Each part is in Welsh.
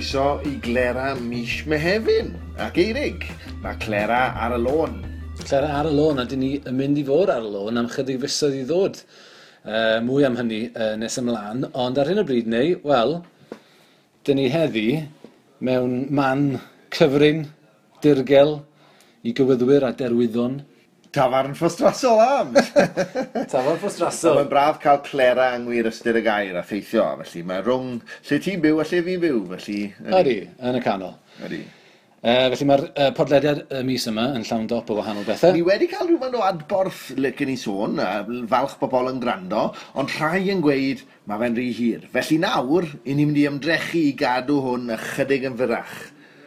Croeso i Glera mis Mehefin ac Eirig. Mae Clera ar y lôn. Clera ar y lôn, a dyn ni yn mynd i fod ar y lôn am chydig fisoedd i ddod. Mwy am hynny nes ymlaen, ond ar hyn o bryd neu, wel, dyn ni heddi mewn man cyfrin, dirgel, i gywyddwyr a derwyddon. Tafarn Ffostrasol Arms! Tafarn Ffostrasol! Mae'n braf cael Clera yng ngwir ystyr y gair a theithio, felly mae rhwng lle ti'n byw a lle fi'n byw, felly... Ydy, yn y canol. Ydy. Felly mae'r podlediad y mis yma yn llawn dop o wahanol bethau. Ni wedi cael rhywfaint o adborth, licen i sôn, a falch bobl yn gwrando, ond rhai yn gweud mae fe'n rhy hir. Felly nawr, 'y ni'n mynd i ymdrechu i gadw hwn ychydig yn fyrrach.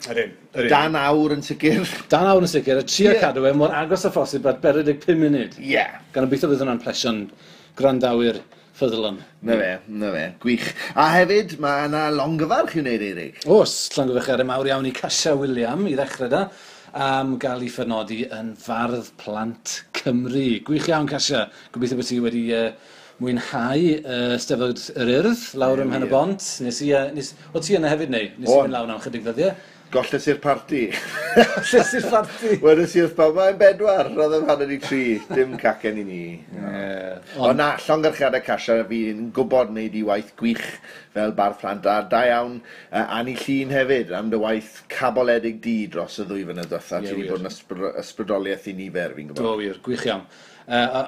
Ydyn, ydyn. Dan awr yn sicr. Dan awr yn sicr, a trio Ie. cadw e mor agos â phosib at 45 munud. Ie. Gan obeithio bydd hwnna'n plesio'n gwrandawyr ffyddlon. Na fe, na fe, gwych. A hefyd, mae yna longyfarch i'w wneud, Eirig. Oes, llongyfarchiadau mawr iawn i Casia Wiliam i ddechrau da, am gael ei phenodi yn Fardd Plant Cymru. Gwych iawn, Casia. Gobeithio bod ti wedi mwynhau Steddfod yr Urdd lawr ym Mhen y Bont. Nes i, nes, o ti yna hefyd neu? Nes i O'n. fynd lawr am chydig ddyddiau. Golles i'r parti. Golles i'r parti. Wedes i wrth bawb, mae'n 4, roedd yn 2:30, dim cacen i ni. Ie. Ond na, llongyfarchiadau Casia, fi'n gwybod wneud i waith gwych fel bardd plant, a da iawn Anni Llŷn hefyd am dy waith caboledig di dros y ddwy flynedd diwetha. Ie, Ti wedi wir. bod yn ysbrydoliaeth i nifer, fi'n gwybod. Do, wir, gwych iawn. A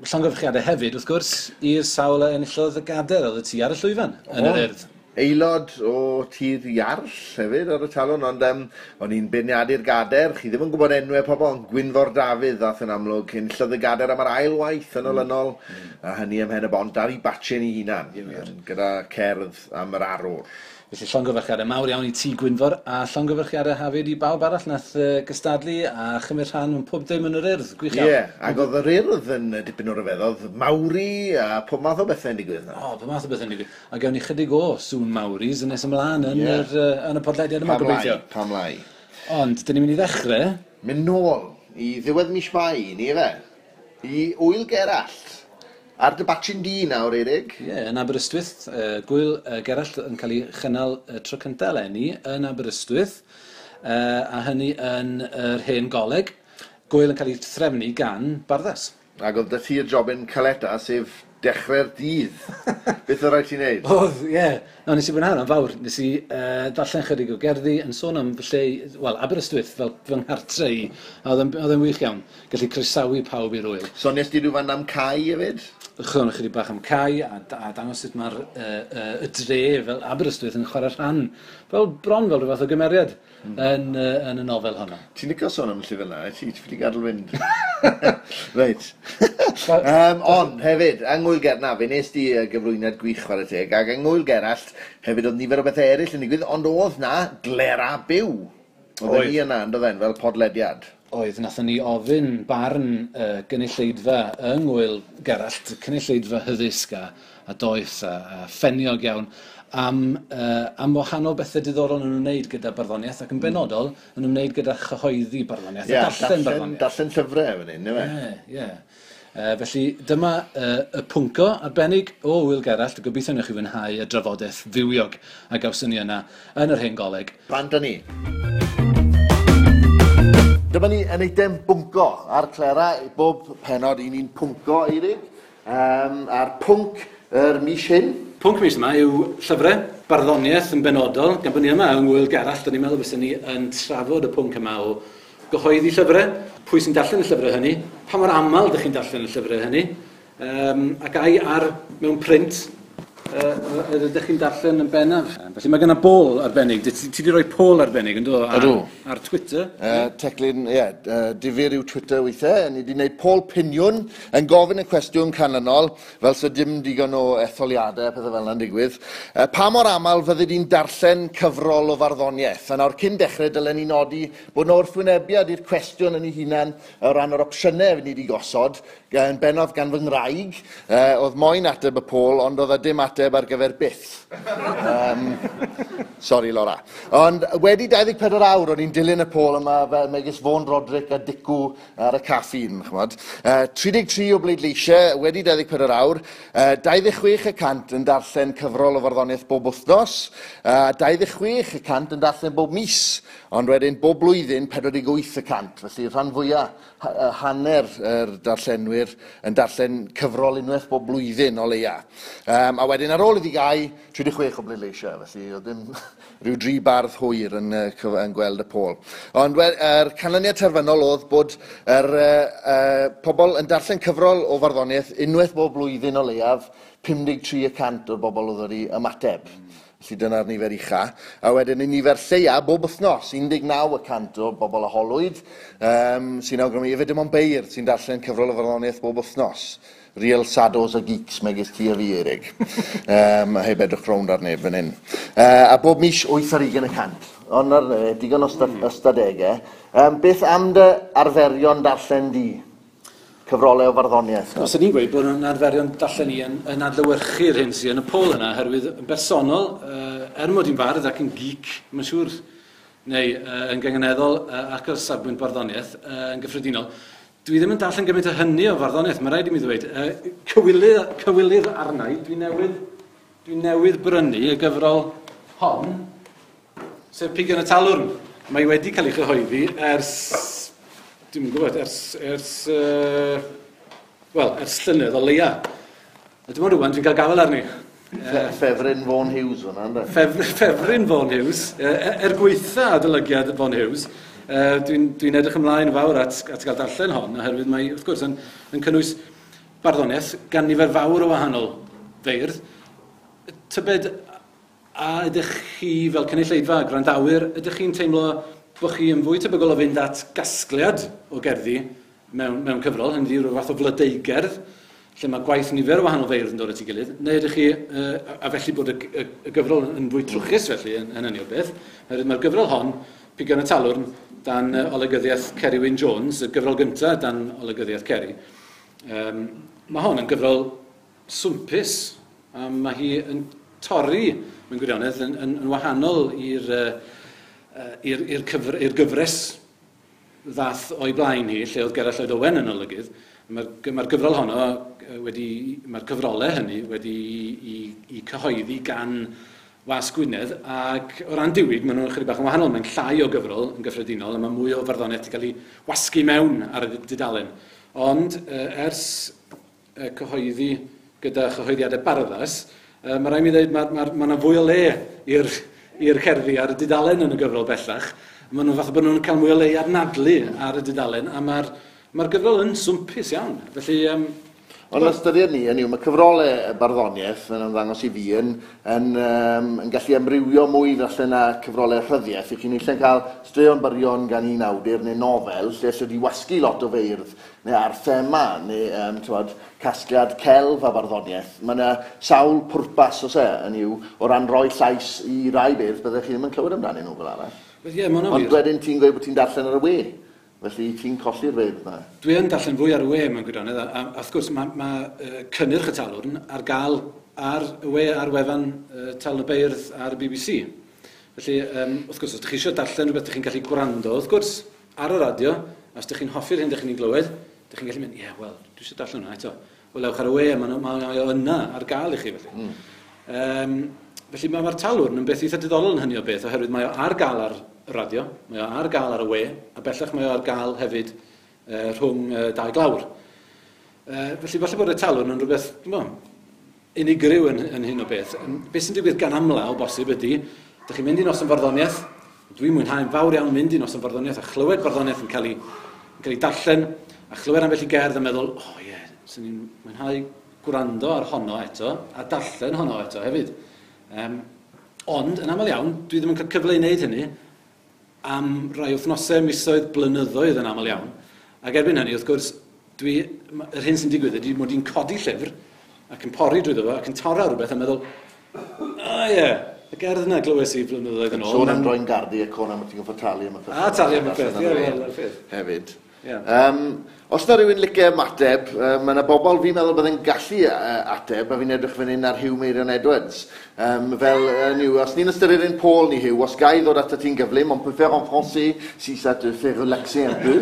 llongyfarchiadau hefyd, wrth gwrs, i'r sawl a enillodd y gader oedd y ti ar y llwyfan yn yr Urdd. Aelod o Tir Iarll hefyd ar y talwrn, ond o'n i'n beirniadu'r gader, chi ddim yn gwybod enwau pobl, ond Gwynfor Dafydd ddath yn amlwg, enillodd y gader am yr ail waith yn olynol, a hynny ym Mhen y Bont ar ei batchen ei hunan, gyda cerdd am yr arwr. Felly llongyfarchiadau mawr iawn i ti, Gwynfor, a llongyfarchiadau hefyd i bawb arall nath gystadlu a chymryd rhan mewn pob dim yn yr Urdd. Gwych iawn. Ie, ac oedd yr Urdd yn dipyn o ryfeddodd, Maori a pob math o bethau'n digwydd yna. O, pob math o bethau'n digwydd. A gawn ni chydig o sŵn Maoris yn nes ymlaen yn, yn y podlediad yma, Pam lai, gobeithio. pam lai. Ond, dyn ni'n mynd i ddechrau. Mynd nôl i ddiwedd mis Mai, ni efe? I Ŵyl Gerallt. Ar dy batchyn di nawr, Eirig. Ie, yn Aberystwyth, Gŵyl Gerallt yn cael ei chynnal tro cyntaf eleni yn Aberystwyth, a hynny yn yr hen goleg. Gŵyl yn cael ei threfnu gan Barddas. Ac oedd 'da ti'r jobyn caleta, sef dechrau'r dydd. Beth oedd rhaid ti wneud? Oedd, ie. No, nes i fwynhau hwnna'n fawr. Nes i darllen chydig o gerddi yn sôn am fy lle, wel, Aberystwyth fel fy nghartre i. A oedd e'n wych iawn. Gallu croesawu pawb i'r ŵyl. So nes di rhywfaint am Cai hefyd? Sôn ychydig bach am Cai a dangos sut mae'r y dre fel Aberystwyth yn chwarae rhan, fel bron fel rhyw fath o gymeriad yn y nofel honno. Ti'n licio sôn am y llyfr yna, ti ffili gadael fynd. Reit. Ond hefyd, yng Ngŵyl Gerallt, na, fe nes di gyflwyniad gwych chwarae teg, ac yng Ngŵyl Gerallt hefyd oedd nifer o bethau eraill yn digwydd, ond oedd na glera byw. Oedd Oedd. ni yna, yn doedd fel podlediad. Oedd, nathon ni ofyn barn gynulleidfa yng Ngŵyl Gerallt, cynulleidfa hyddysg a doeth a ffeniog iawn, am wahanol bethau diddorol yn ymwneud gyda barddoniaeth ac yn benodol yn ymwneud gyda chyhoeddi barddoniaeth a darllen barddoniaeth. Darllen llyfrau fan hyn, yw e? Ie, ie. Felly dyma y pwnco arbennig o Ŵyl Gerallt, gobeithio newch chi fwynhau y drafodaeth fywiog a gawson ni yna yn yr hen goleg. Bant â ni. Dyma ni yn eitem bwnco ar Clera, bob pennod i ni'n pwnco, Eirig, a'r pwnc yr mis hyn. Pwnc mis yma yw llyfrau, barddoniaeth yn benodol, gan bod ni yma yng Ngŵyl Gerallt, o'n i'n meddwl fysen ni yn trafod y pwnc yma o gyhoeddi llyfrau, pwy sy'n darllen y llyfrau hynny, pa mor aml ydych chi'n darllen y llyfrau hynny, ac ai ar mewn print ydych chi'n darllen yn bennaf. Felly mae genna bol arbennig, ti wedi rhoi poll arbennig yn do? Ydw. Ar Twitter. Teclyn, ie, difyr yw Twitter weithiau. Ni wedi gwneud poll piniwn yn gofyn y cwestiwn canlynol, fel sy dim digon o etholiadau a pethau fel yna'n digwydd. Pa mor aml fyddi di'n darllen cyfrol o farddoniaeth? A nawr cyn dechrau dylen ni nodi bod yna wrthwynebiad i'r cwestiwn yn ei hunan o ran yr opsiynau ni wedi gosod, yn bennaf gan fy ngwraig. Oedd moyn ateb y poll, ond oedd e dim ateb ateb ar gyfer byth. Sorry, Laura. Ond wedi 24 awr, o'n i'n dilyn y pôl yma fel megis Vaughan Roderick a Dicw ar y caffeine, ch'mod. 33 o bleidleisiau wedi 24 awr, 26% yn darllen cyfrol o farddoniaeth bob wythnos, 26% yn darllen bob mis, ond wedyn bob blwyddyn 48%, felly rhan fwyaf, hanner yr darllenwyr yn darllen cyfrol unwaith bob blwyddyn o leia. A wedyn ar ôl iddi gau, 36 o bleidleisiau, felly oedd dim rhyw dri bardd hwyr yn gweld y pôl. Ond yr canlyniad terfynol oedd bod yr pobl yn darllen cyfrol o farddoniaeth unwaith bob blwyddyn o leiaf, 53% o'r bobl oedd wedi ymateb. Felly dyna'r nifer ucha. A wedyn y nifer lleia bob wythnos, 19% o bobl a holwyd, sy'n awgrymu efe dim ond beirdd sy'n darllen cyfrol o farddoniaeth bob wythnos. Real sados a geeks megis ti a fi, Eirig. A heb edrych rownd ar neb fan hyn. A bob mis 28%. Ond ar digon o ystadegau. Beth am dy arferion darllen di? Cyfrolau o farddoniaeth? Os ydyn ni'n gweud bod yn arferion darllen i yn adlewyrchu'r hyn sydd yn y pôl yna, oherwydd yn bersonol, er mod i'n fardd ac yn geek, mae'n siŵr, neu yn gynganeddol ac o'r safbwynt barddoniaeth yn gyffredinol, dwi ddim yn darllen gymaint o hynny o farddoniaeth, mae rhaid i mi ddweud. Cywilydd arna i, dwi newydd brynu y gyfrol hon, sef Pigion y Talwrn. Mae wedi cael ei chyhoeddi ers, dwi'm yn gwybod, ers llynedd o leia. A dim ond rŵan dwi'n cael gafael arni. Ffefryn Vaughan Hughes hwnna, ynddo? Ffefryn Vaughan Hughes, er gweitha adolygiad Vaughan Hughes, dwi'n edrych ymlaen fawr at gael darllen hon, oherwydd mae, wrth gwrs, yn cynnwys barddoniaeth gan nifer fawr o wahanol feirdd. Tybed, a ydych chi fel cynulleidfa, gwrandawyr, ydych chi'n teimlo bod chi yn fwy tebygol o fynd at gasgliad o gerddi mewn cyfrol, hynny yw rhyw fath o flodeugerdd, lle mae gwaith nifer o wahanol feirdd yn dod at ei gilydd, neu ydych chi, a felly bod y gyfrol yn fwy trwchus felly yn hynny o beth, oherwydd mae'r gyfrol hon, Pigion y Talwrn, dan olygyddiaeth Ceri Wyn Jones, y gyfrol gyntaf dan olygyddiaeth Ceri. Mae hon yn gyfrol swmpus, a mae hi yn torri, mewn gwirionedd, yn wahanol i'r gyfres ddath o'i blaen hi, lle oedd Gerallt Lloyd Owen yn olygydd. Mae'r gyfrol honno wedi, mae'r cyfrolau hynny wedi i cyhoeddi gan Wasg Gwynedd, ac o ran diwyg, maen nhw'n chydig bach yn wahanol. Mae'n llai o gyfrol yn gyffredinol, a mae mwy o farddoniaeth wedi cael ei wasgu mewn ar y dudalen. Ond ers cyhoeddi gyda chyhoeddiadau Barddas, mae rhaid mi ddweud mae yna fwy o le i'r cerddi ar y dudalen yn y gyfrol bellach. Maen nhw'n fath o bod nhw'n cael mwy o le i anadlu ar y dudalen, a mae'r gyfrol yn swmpus iawn. Felly, Ond ystyried ni, hynny yw, mae cyfrolau barddoniaeth yn ymddangos i fi yn gallu amrywio mwy falle na cyfrolau rhyddiaeth. I chi'n eisiau cael straeon byrion gan un awdur neu nofel, lle sydd wedi wasgu lot o feirdd, neu ar thema, neu casgliad celf a barddoniaeth. Mae yna sawl pwrpas, os e, hynny yw, o ran rhoi llais i rai beirdd, byddech chi ddim yn clywed amdanyn nhw fel arall. Wel, ie, ma' hwnna'n wir. Ond wedyn ti'n gweud bod ti'n darllen ar y we. Felly ti'n colli'r feirdd yna? Dwi yn darllen fwy ar y we mewn gwirionedd, a wrth gwrs mae cynnyrch y Talwrn ar gael ar y we, ar wefan Talwrn y Beirdd ar y BBC. Felly, wrth gwrs, os ydych chi eisiau darllen rhywbeth, ydych chi'n gallu gwrando, wrth gwrs, ar y radio, a os ydych chi'n hoffi'r hyn ydych chi'n ei glywed, ydych chi'n gallu mynd, ie, yeah, wel, dwi eisiau darllen hwnna eto. Wel, ewch ar y we, mae o yna ar gael i chi, felly. Felly mae'r Talwrn yn beth eitha diddorol yn hynny o beth, oherwydd mae o ar gael ar y radio, mae o ar gael ar y we, a bellach mae o ar gael hefyd rhwng dau glawr. Felly falle bod y Talwrn yn rhywbeth, dwi'm yn gwbod, unigryw yn hyn o beth. Beth sy'n digwydd gan amla o bosib ydy, dych chi'n mynd i noson farddoniaeth, dwi'n mwynhau'n fawr iawn mynd i noson farddoniaeth a chlywed barddoniaeth yn cael ei darllen, a chlywed ambell i gerdd a meddwl, o oh, ie, yeah, swn i'n mwynhau gwrando ar honno eto, a darllen honno eto hefyd. Ond, yn aml iawn, dwi ddim yn cael cyfle i wneud hynny am rai wythnosau, misoedd, blynyddoedd yn aml iawn. Ac erbyn hynny, wrth gwrs, yr hyn sy'n digwydd ydy mod i'n codi llyfr ac yn pori drwyddo fo ac yn torra rhywbeth a meddwl, o ie, y gerdd yna glywes i blynyddoedd yn ôl. Sôn am droi'n gardi a côn am ti'n gorfod talu am y peth. A talu am y peth, ie, wel, y peth. Hefyd. Yeah. Os na rhywun licio ymateb, mae yna bobl fi'n meddwl byddai'n gallu ateb, a fi'n edrych fan hyn ar Huw Meirion Edwards. Fel, yw, os ni'n ystyried ein pôl ni, Huw, os ga i ddod atat ti'n gyflym, on peut faire en français si ça te fait relaxer un peu.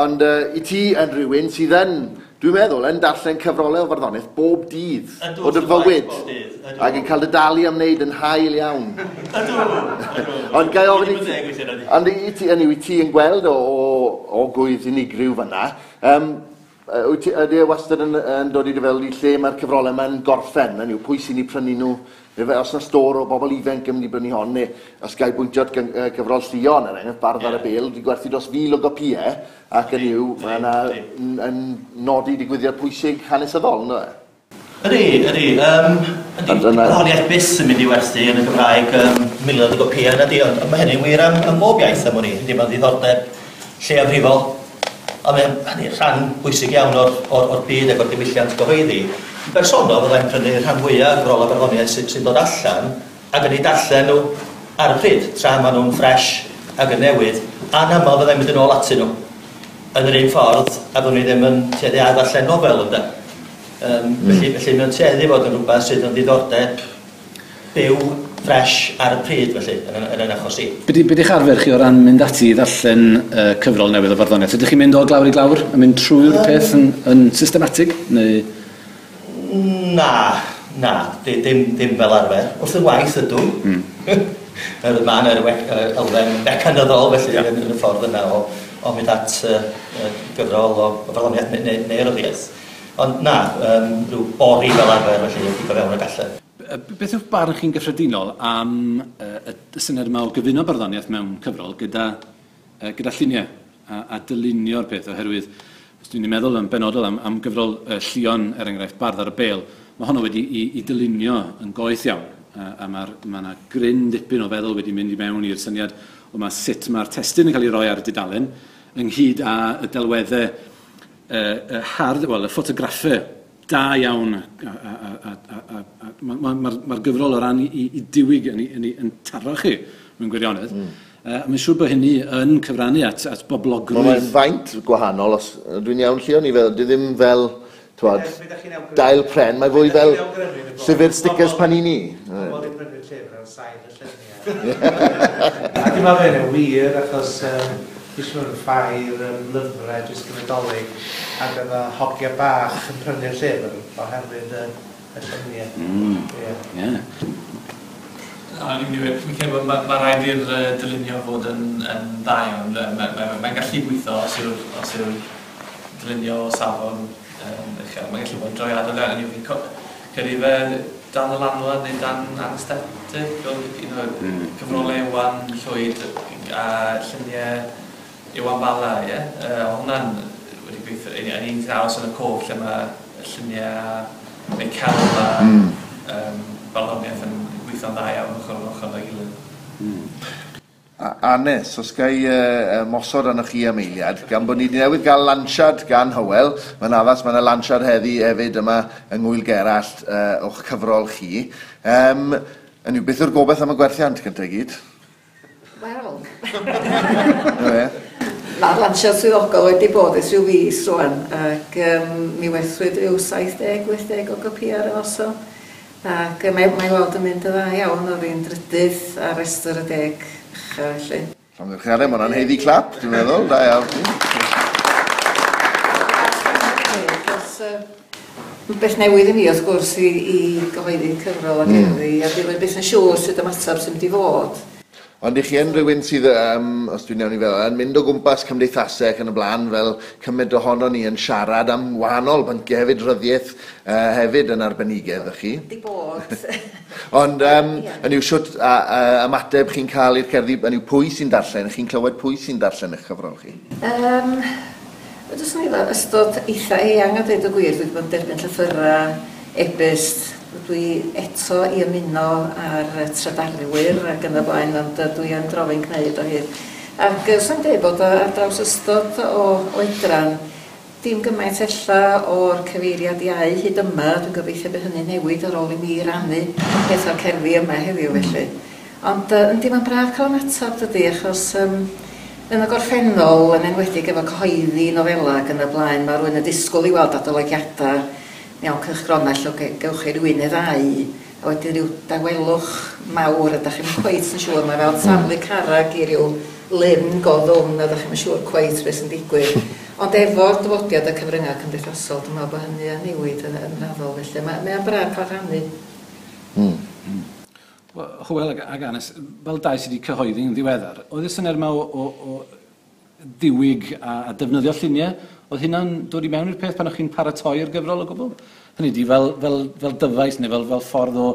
Ond i ti yn rhywun sydd yn, dwi'n meddwl, yn darllen cyfrolau o farddoniaeth bob dydd Ydw, o dy wrth y fywyd. bodd, bob dydd, ydw. Ac yn cael dy dalu am wneud yn hael iawn. Ydw, ydw. Ond ga i ofyn i Wedi ti, bod yn deg weithiau, nadi? ond i ti, hynny yw, i ti yn gweld o gwydd unigryw fan'na, wyt ti, ydy e wastad yn dod i dy feddwl i lle mae'r cyfrolau yma'n gorffen, hynny yw, pwy sy'n eu prynu nhw, neu fe, os na stôr o bobl ifanc yn mynd i brynu hon, neu os ga i bwyntio at gyfrol Llion, er enghraifft, Bardd ar y Bêl, wedi gwerthu dros 1,000 o gopïau, ac yn yw, mae yna yn nodi digwyddiad pwysig hanesyddol, ynddo fe? Ydy, ydy. Ydy, Ond dyna- barddoniaeth byth yn mynd i werthu yn y Gymraeg, miloedd o gopïau yna di, ond mae hynny'n wir am bob iaith am wn i. Ydy, mae'n ddiddordeb lleiafrifol, ond mae'n hynny rhan bwysig iawn o'r byd ac o'r diwylliant gyhoeddi. Yn bersonol, fyddai'n prynu rhan fwyaf o'r gyfrolau barddoniaeth sy'n dod allan ac yn eu darllen nhw ar y pryd, tra maen nhw'n ffres ac yn newydd, a'n aml fyddai'n mynd yn ôl atyn nhw yn yr un ffordd, a byddwn i ddim yn tueddu a ddarllen nofel, ynde. Felly mae'n tueddu fod yn rhywbeth sydd yn ddiddordeb byw, ffres ar y pryd, felly, yn achos i. Be di'ch arfer chi o ran mynd ati i ddarllen cyfrol newydd o farddoniaeth? Ydych chi'n mynd o glawr i glawr a mynd trwy'r peth yn systematig? Neu? Na, na, dim fel arfer. Wrth y waith ydw. Mae yna elfen mecanyddol, felly, yn y ffordd yna o mynd at gyfrol o farddoniaeth neu ryddiaeth. Ond na, rhyw bori fel arfer, felly, i fewn y gallu. Beth yw'ch barn chi'n gyffredinol am y syniad yma o gyfuno barddoniaeth mewn cyfrol gyda lluniau a dylunio'r peth, oherwydd, os dwi'n meddwl yn benodol am gyfrol Llion, er enghraifft, Bardd ar y Bêl, mae honno wedi i dylunio yn goeth iawn, a ma' 'na gryn dipyn o feddwl wedi mynd i mewn i'r syniad o ma' sut mae'r testun yn cael ei roi ar y dudalen, ynghyd â y delweddau, hardd, wel, y ffotograffau da iawn, a mae'r gyfrol o ran i diwyg yn taro chi mewn gwirionedd. Mae'n siŵr bod hynny yn cyfrannu at boblogrwydd. Mae'n faint gwahanol, os dwi'n iawn, Llion, i fel, dwi ddim fel, t'wod, Be' dach chi'n awgrymu? dail pren, mae fwy Be' dach fel chi'n awgrymu yn y bôn? llyfr stickers Panini. Pobl wedi prynu'r llyfr ar sail y lluniau. A dwi'n meddwl bod hynny'n wir, achos dwi eisiau mynd yn ffair lyfrau jyst yn Nadolig, ac oedd y hogia bach yn prynu'r llyfr oherwydd y lluniau. Ie. Na, ni'n mynd i weud, fi'n credu bod ma' raid i'r dylunio fod yn dda iawn. Mae'n gallu gweithio os yw'r dylunio o safon uchel. Mae'n gallu bod yn drawiadol iawn. Fi'n credu fe dan y lanwad neu dan anesthetic, oedd un o'r cyfrolau Iwan Llwyd a lluniau Iwan Bala, ie? Hwnna'n wedi gweithio, yn un sy'n aros yn y cof lle mae lluniau neu celf a barddoniaeth yn gweithio'n dda iawn ochr yn ochr â'i gilydd. Anes, os ga i mosod arnoch chi am eiliad, gan bod ni wedi newydd gael lansiad gan Hywel, mae'n addas, mae yna lansiad heddi hefyd yma yng Ngŵyl Gerallt o'ch cyfrol chi. Hynny yw, beth yw'r gobaith am y gwerthiant gyntaf i gyd? Wel. Na fe. Mae'r lansiad swyddogol wedi bod ers rhyw fis rŵan, ac mi werthwyd rhyw 70-80 o gopïau ar y noson. Ac mae weld yn mynd yn dda iawn, oedd hi'n drydydd ar restr y 10 ucha felly. Llongyfarchiadau, mae hwnna'n haeddu clap, dwi'n meddwl, da iawn. Beth newydd i mi, wrth gwrs, i gyhoeddi cyfrol ac erddi, a dwi'n byth yn siŵr sut ymateb sy'n mynd i fod. Ond i chi yn rhywun sydd, os dwi'n iawn i feddwl, yn mynd o gwmpas cymdeithasau ac yn y blaen, fel cymaint ohono ni yn siarad am wahanol bynciau hefyd, ryddiaeth hefyd yn arbenigedd, ych chi? Di bod. Ond, yn yw shwt ymateb chi'n cael i'r cerddi, yn yw pwy sy'n darllen, chi'n clywed pwy sy'n darllen eich cyfrol chi? Dwi jyst yn meddwl, ystod eitha eang a dweud y gwir, dwi wedi bod yn derbyn llythyrau, e-byst, dwi eto i ymuno ar trydarwyr ac yn y blaen, ond dwi yn drofyn gwneud o hyd. Ac swn i'n dweud bod ar draws ystod o oedran, dim gymaint ella o'r cyfeiriad iau hyd yma, dwi'n gobeithio bydd hynny'n newid ar ôl i mi rannu peth o'r cerddi yma heddiw felly. Ond yndi, mae'n braf cael ymateb dydy, achos Yn y gorffennol, yn enwedig efo cyhoeddi nofela ac yn y blaen, mae rhywun yn disgwyl i weld adolygiadau mewn cylchgronau lle gewch chi rywun neu ddau, a wedyn rhyw dawelwch mawr a dach chi'm cweit yn siŵr, mae fel taflu carreg i ryw lyn go ddwfn a dach chi'm yn siŵr cweit beth sy'n digwydd. Ond efo'r dyfodiad y cyfryngau cymdeithasol, dwi'n meddwl bod hynny yn newid yn, yn raddol, felly mae, mae o'n braf cael rhannu. Wel, Hywel ag, ag Anes, fel dau sydd wedi cyhoeddi yn ddiweddar, oedd y syniad yma o, o, o ddiwyg a, a defnyddio lluniau, oedd hynna'n dod i mewn i'r peth pan o'ch chi'n paratoi'r gyfrol o gwbl? Hynny ydi, fel, fel, fel dyfais neu fel, fel ffordd o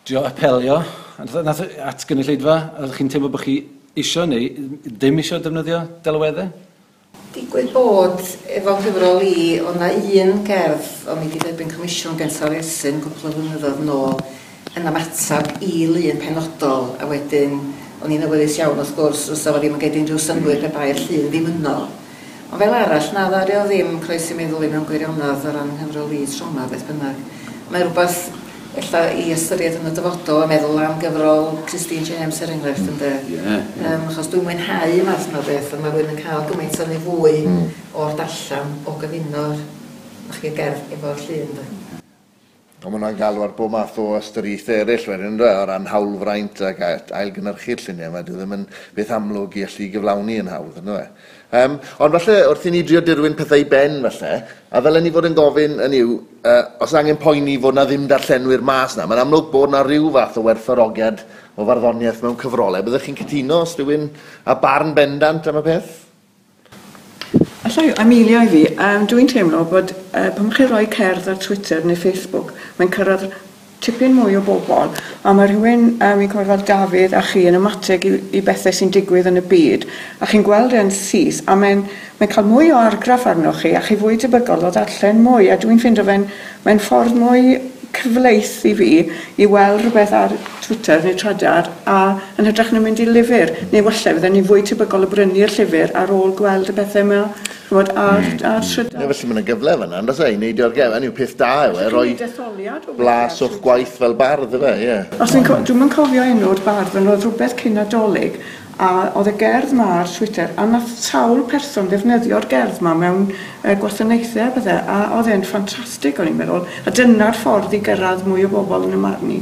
drio apelio nath, at gynulleidfa, oeddech chi'n teimlo bod chi isio neu ddim isio defnyddio delweddau? Digwydd bod efo nghyfrol i, oedd 'na un gerdd o'n i 'di derbyn comisiwn gen Taliesin gwpl o flynyddoedd nôl yn ymateb i lun penodol, a wedyn o'n i'n awyddus iawn wrth gwrs fysa fo ddim yn gneud unrhyw synnwyr pe bai'r llun ddim yno. Ond fel arall, na ddaru o ddim croesi meddwl i mewn gwirionedd o ran nghyfrol i tro 'ma beth bynnag. Mae rhywbeth ella i ystyried yn y dyfodol a meddwl am gyfrol Christine James er enghraifft ynde? Ie. Yeah, yeah. Achos dwi'n mwynhau y math yma o beth a mae rhywun yn cael gymaint o neu fwy o'r darllen o gyfuno'r chi gerdd efo'r llun de. Ond ma' hwnna'n galw ar bob math o ystyriaethau eraill wedyn yndyw e, o ran hawlfraint ac ailgynhyrchu'r lluniau yma, dyw e ddim yn beth amlwg i allu gyflawni yn hawdd, yndyw e? Um, ond falle wrth i ni drio dirwyn pethau i ben falle, a ddylen ni fod yn gofyn yn yw, os angen poeni fod na ddim darllenwyr mas na, mae'n amlwg bod na rhyw fath o werthfawrogiad o farddoniaeth mewn cyfrolau. Byddech chi'n cytuno os rhywun a barn bendant am y peth? Alla i, Amelia i fi, dwi'n teimlo bod pan chi'n rhoi cerdd ar Twitter neu Facebook, mae'n cyrraedd tipyn mwy o bobl, a mae rhywun, fi'n cofio fel Dafydd a chi yn ymateb i bethau sy'n digwydd yn y byd, a chi'n gweld e'n syth, a mae'n mae cael mwy o argraff arnoch chi, a chi fwy tebygol o ddarllen mwy, a dwi'n ffindo fe'n mae'n ffordd mwy cyfleus i fi i weld rhywbeth ar Twitter neu Trydar a yn hytrach na mynd i lyfr, neu falle fydden ni fwy tebygol o brynu'r llyfr ar ôl gweld y bethau yma, ch'mod, ar, ar Trydar. Ie, felly mae yna gyfle fan'na, yn does e, i neud o'r gefn, yw peth da yw e, rhoi blas o'ch gwaith fel bardd, yfe, ie. Os dwi'n dwi'm yn cofio enw'r bardd, ond oedd rhywbeth cyn Nadolig, a oedd y gerdd ma ar Twitter, a nath sawl person ddefnyddio'r gerdd ma mewn gwasanaethau a pethau, a oedd e'n ffantastig o'n i'n meddwl, a dyna'r ffordd i gyrraedd mwy o bobl yn y marn i.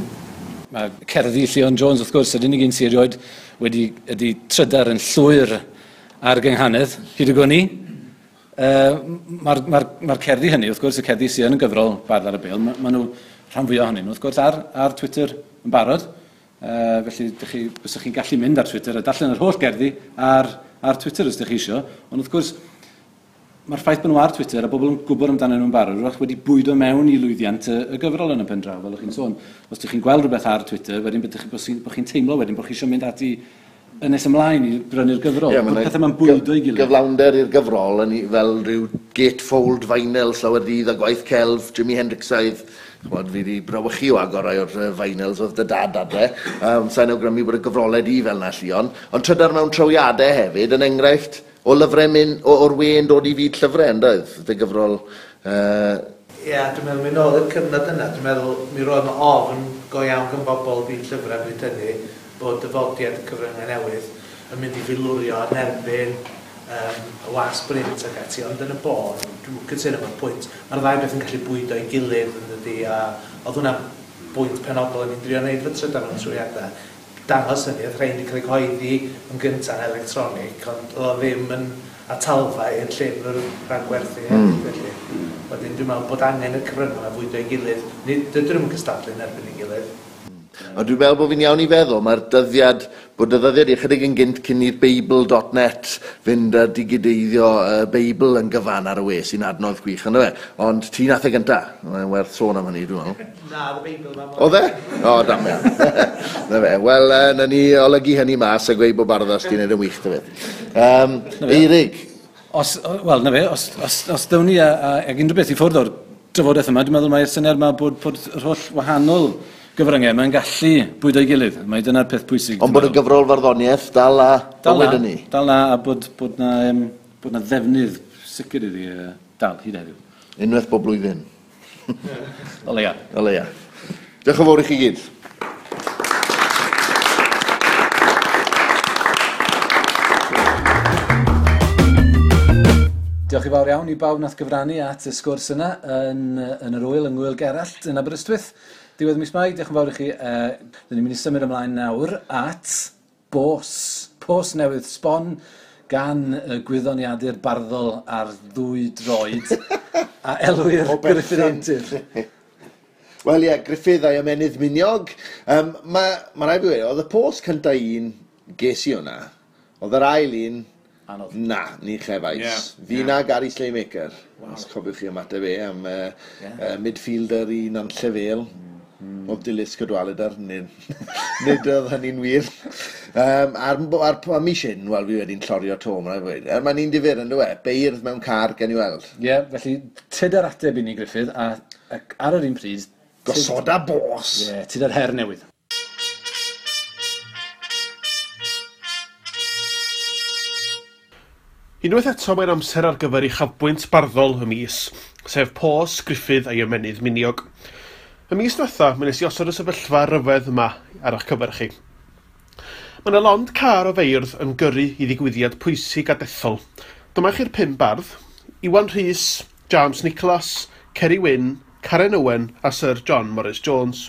Mae cerddi Llion Jones, wrth gwrs, yr unig un sydd erioed wedi ydy trydar yn llwyr ar gynghanedd, hyd y gwn i. Mae'r ma ma cerddi hynny, wrth gwrs, y cerddi sydd yn y gyfrol Bardd ar y Bêl, maen ma nhw rhan fwyaf ohonyn nhw, wrth gwrs, ar, ar Twitter yn barod. Felly, dych chi, byswch chi'n gallu mynd ar Twitter a darllen yr holl gerddi ar, ar Twitter os ydych chi eisiau. Ond wrth gwrs, mae'r ffaith bod nhw ar Twitter a bobl yn gwybod amdanyn nhw'n barod, wrach wedi bwydo mewn i lwyddiant y, y gyfrol yn y pen draw, fel ydych chi'n sôn. Os ydych chi'n gweld rhywbeth ar Twitter, wedyn bod chi'n bo chi teimlo wedyn bod chi eisiau mynd ati yn nes ymlaen i brynu'r gyfrol. Ie, Bod pethau ma'n bwydo i gilydd. Gyflawnder i'r gyfrol yn fel rhyw gatefold vinyl slawer dydd a gwaith celf Jimi Hendrixaidd. Ch'mod, fi 'di brawychu o agor rai o'r vinyls oedd dy dad adre. Sa'n awgrymu bod y gyfrolau di fel 'na, Llion. Ond trydar mewn trawiadau hefyd, yn enghraifft o lyfrau mynd, o'r we yn dod i fyd llyfrau, yn doedd? Dy gyfrol... Ie, dwi'n meddwl, mynd nôl i'r cyfnod yna, dwi'n meddwl mi roedd 'na ofn go iawn gan bobl byd llyfrau bryd hynny bod dyfodiad y cyfryngau newydd yn mynd i filwrio yn erbyn y wasg brint ac ati, ond yn y bôn, dwi'n cytuno efo'r pwynt, mae'r ddau beth yn gallu bwydo ei gilydd yn dydi, a oedd hwnna'n bwynt penodol o'n i'n drio neud fy trydar mewn trwyadau. Dangos hynny, oedd rhain wedi cael eu cyhoeddi yn gyntaf yn electronig, ond oedd o ddim yn atalfa i'r llyfr rhag gwerthu hefyd, felly. Wedyn dwi'n meddwl bod angen y cyfryngau yma fwydo ei gilydd. Nid, dydyn nhw'm yn cystadlu yn erbyn ei gilydd. Ond dwi'n meddwl bod fi'n iawn i feddwl, mae'r dyddiad, bod y ddyddiad i ychydig yn gynt cyn i'r Beibl.net fynd a digideiddio y Beibl yn gyfan ar y we, sy'n adnodd gwych, yndyfe? Ond ti nath e gynta, mae'n werth sôn am hynny, dwi'n meddwl. Na, oedd y Beibl yma. Oedd e? O, damian. Na fe, wel, na ni olygu hynny mas a gweud bod Barddas di wneud yn wych, dy beth. Eirig. Os, wel, na fe, os, os, os ddown ni ag unrhyw beth i ffwrdd o'r drafodaeth yma, dwi'n meddwl mae'r syniad yma bod, bod yr holl wahanol gyfryngau yma'n gallu bwydo'i gilydd. Mae dyna'r peth pwysig. Ond bod y gyfrol farddoniaeth dal a bywyd yn ni. Dal na, a bod, bod, na, bod na ddefnydd sicr iddi dal hyd heddiw. Unwaith bob blwyddyn. O leia. O leia. Diolch yn fawr i chi gyd. Diolch i fawr iawn i bawb nath gyfrannu at y sgwrs yna yn yr wyl, yng Ngŵyl Gerallt yn Aberystwyth. Diwedd mis Mai, diolch yn fawr i chi. Dyn ni'n mynd i symud ymlaen nawr at Bos. Pos newydd sbon gan y gwyddoniadur barddol ar ddwy droed a elwir Gruffudd Antur. Wel ie, Gruffudd a'i ymennydd miniog. Ma rhaid fi weud, oedd y pos cynta un ges i hwnna. Oedd yr ail un... Anodd. Na, ni chefais. Fi na Gary Slaymaker. Wow. Os cofiwch chi ymateb e am midfielder i Nantlle Vale. Oedd Dilys Cadwaladr, nid oedd hynny'n wir. A'r mis hyn, wel, fi wedi'n llorio to, mae'n rhaid fi weud. Mae'n un difyr, yn dyw e? Beirdd mewn car, gen i weld. Ie, felly, tyd ar ateb i ni, Gruffudd, ac ar yr un pryd... Gosoda bos! Ie, tyd ar her newydd. Unwaith eto mae'n amser ar gyfer uchafbwynt barddol y mis, sef Pos, Gruffudd a'i ymennydd miniog. Y mis diwetha, mi wnes i osod y sefyllfa ryfedd yma ar eich cyfer chi. Mae yna lond car o feirdd yn gyrru i ddigwyddiad pwysig a dethol. Dyma chi'r 5 bardd, Iwan Rhys, James Nicholas, Ceri Wyn, Karen Owen a Sir John Morris Jones.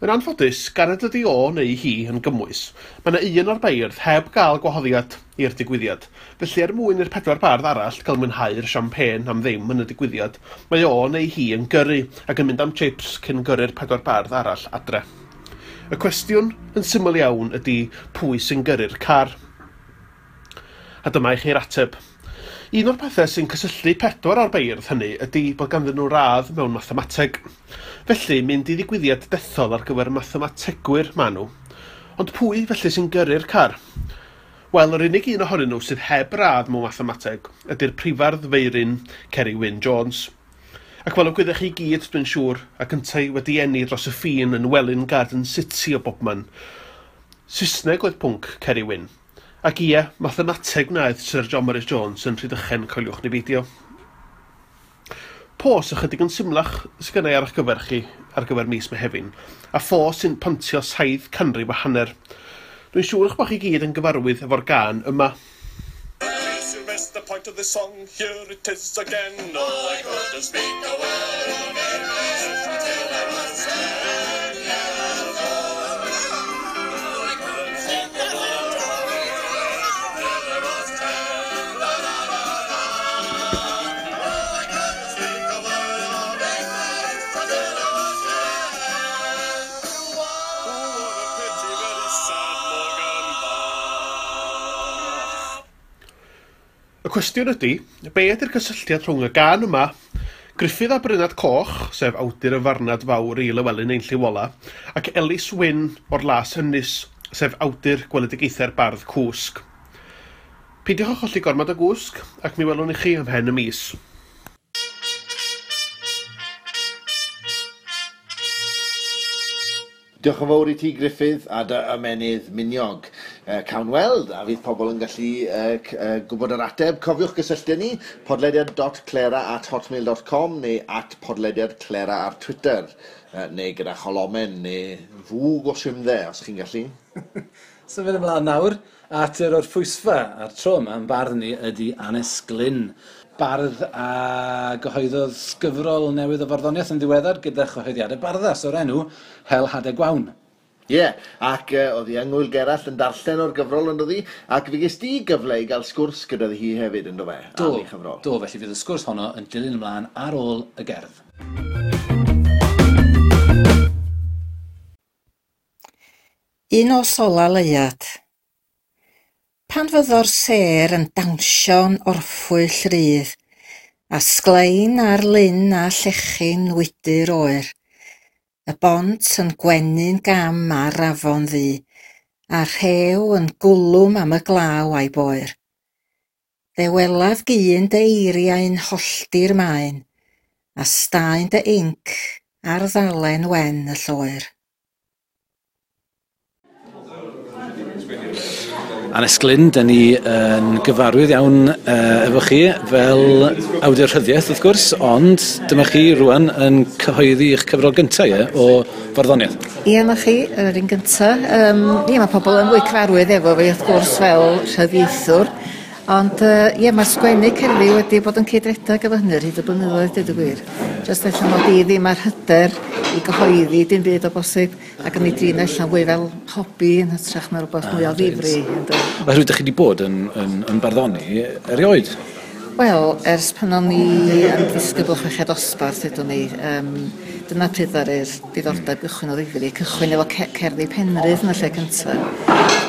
Yn anffodus, gan nad ydi o neu hi yn gymwys, mae yna un o'r beirdd heb gael gwahoddiad i'r digwyddiad. Felly er mwyn i'r 4 bardd arall gael mwynhau'r champagne am ddim yn y digwyddiad, mae o neu hi yn gyrru ac yn mynd am chips cyn gyrru'r 4 bardd arall adre. Y cwestiwn yn syml iawn ydy pwy sy'n gyrru'r car. A dyma i chi'r ateb. Un o'r pethau sy'n cysylltu 4 o'r beirdd hynny ydy bod ganddyn nhw radd mewn mathemateg. Felly, mynd i ddigwyddiad dethol ar gyfer mathemategwyr maen nhw. Ond pwy felly sy'n gyrru'r car? Wel, yr unig un ohonyn nhw sydd heb radd mewn mathemateg ydy'r prifardd Feirin Ceri Wyn Jones. Ac fel y gwyddech chi gyd, dwi'n siŵr, ac yntau wedi eni dros y ffin yn Welwyn Garden City o bobman. Saesneg oedd pwnc Ceri Wyn. Ac ie, mathemateg wnaeth Sir John Morris Jones yn Rhydychen, coeliwch ni beidio. Pos ychydig yn symlach sydd gennau ar eich gyfer chi ar gyfer mis Mehefin, a phos sy'n pontio 750. Dwi'n siŵr eich bod chi gyd yn gyfarwydd efo'r gân yma. You missed the point of the song, here it is again. Oh, I couldn't speak a word of English until I was 10 years old. Oh, I couldn't speak a word of English until I was 10. La, la, la, la. Oh, I couldn't speak a word of English until I was 10. Oh, what a pity, very sad Morgan Bach. Y cwestiwn ydy, be ydy'r cysylltiad rhwng y gân yma, Gruffudd a Brynad Coch, sef awdur y farnad fawr i Lywelyn ein Llyw Ola, ac Elis Wyn o'r Las Ynys, sef awdur gweledigaethau'r bardd Cwsg. Peidiwch â cholli gormod o gwsg, ac mi welwn i chi ymhen y mis. Diolch yn fawr i ti, Gruffudd, a dy ymennydd miniog. Cawn weld, a fydd pobl yn gallu gwybod yr ateb. Cofiwch gysylltu ni, podlediad.clera@hotmail.com neu @podlediadclera ar Twitter, neu gyda cholomen, neu fwg o simdde, os chi'n gallu. Symud ymlaen nawr at yr orffwysfa, a'r tro yma yn bardd ni ydy Annes Glynn. Bardd a gyhoeddodd gyfrol newydd o farddoniaeth yn ddiweddar gyda chyhoeddiadau Barddas o'r enw Hel Hadau Gwaun. Ie, ac oedd hi yng Ngŵyl Gerallt yn darllen o'r gyfrol yn dod hi, ac fe ges di gyfle i gael sgwrs gyda hi hefyd yn do fe, Do, am ei chyfrol. do, felly fydd y sgwrs honno yn dilyn ymlaen ar ôl y gerdd. Un o sola leuad. Pan fyddo'r sêr yn dawnsio'n orffwyll rydd, a sglein ar lyn a llechi'n wydr oer, y bont yn gwenu'n gam ar afon ddu, a rhew yn gwlwm am y glaw a'i boer. Fe welaf gyn dy eiriau'n hollti'r maen, a staen dy inc ar ddalen wen y lloer. Annes Glynn, dyn ni yn gyfarwydd iawn efo chi fel awdur rhyddiaeth, wrth gwrs, ond dyma chi rwan yn cyhoeddi eich cyfrol gyntaf, ie, o farddoniaeth. Ie, na chi, yr un gyntaf. Ie, mae pobl yn fwy cyfarwydd efo fi, wrth gwrs, fel rhyddiaethwr, Ond ie, mae'r sgwennu cerddi wedi bod yn cydredeg efo hynny ar hyd y blynyddoedd, dweud y gwir. Jyst ella mod i ddim ar hyder i gyhoeddi dim byd o bosib, ac yn ei drin allan fwy fel hobi yn hytrach na rhywbeth mwy o ddifri. Oherwydd ydych chi wedi bod yn barddoni erioed? Wel, ers pan o'n i yn ddisgybl chweched dosbarth, ydwn ni, dyna pryd ddaru'r diddordeb gychwyn o ddifri, cychwyn efo cerddi Penrhydd yn y lle cyntaf.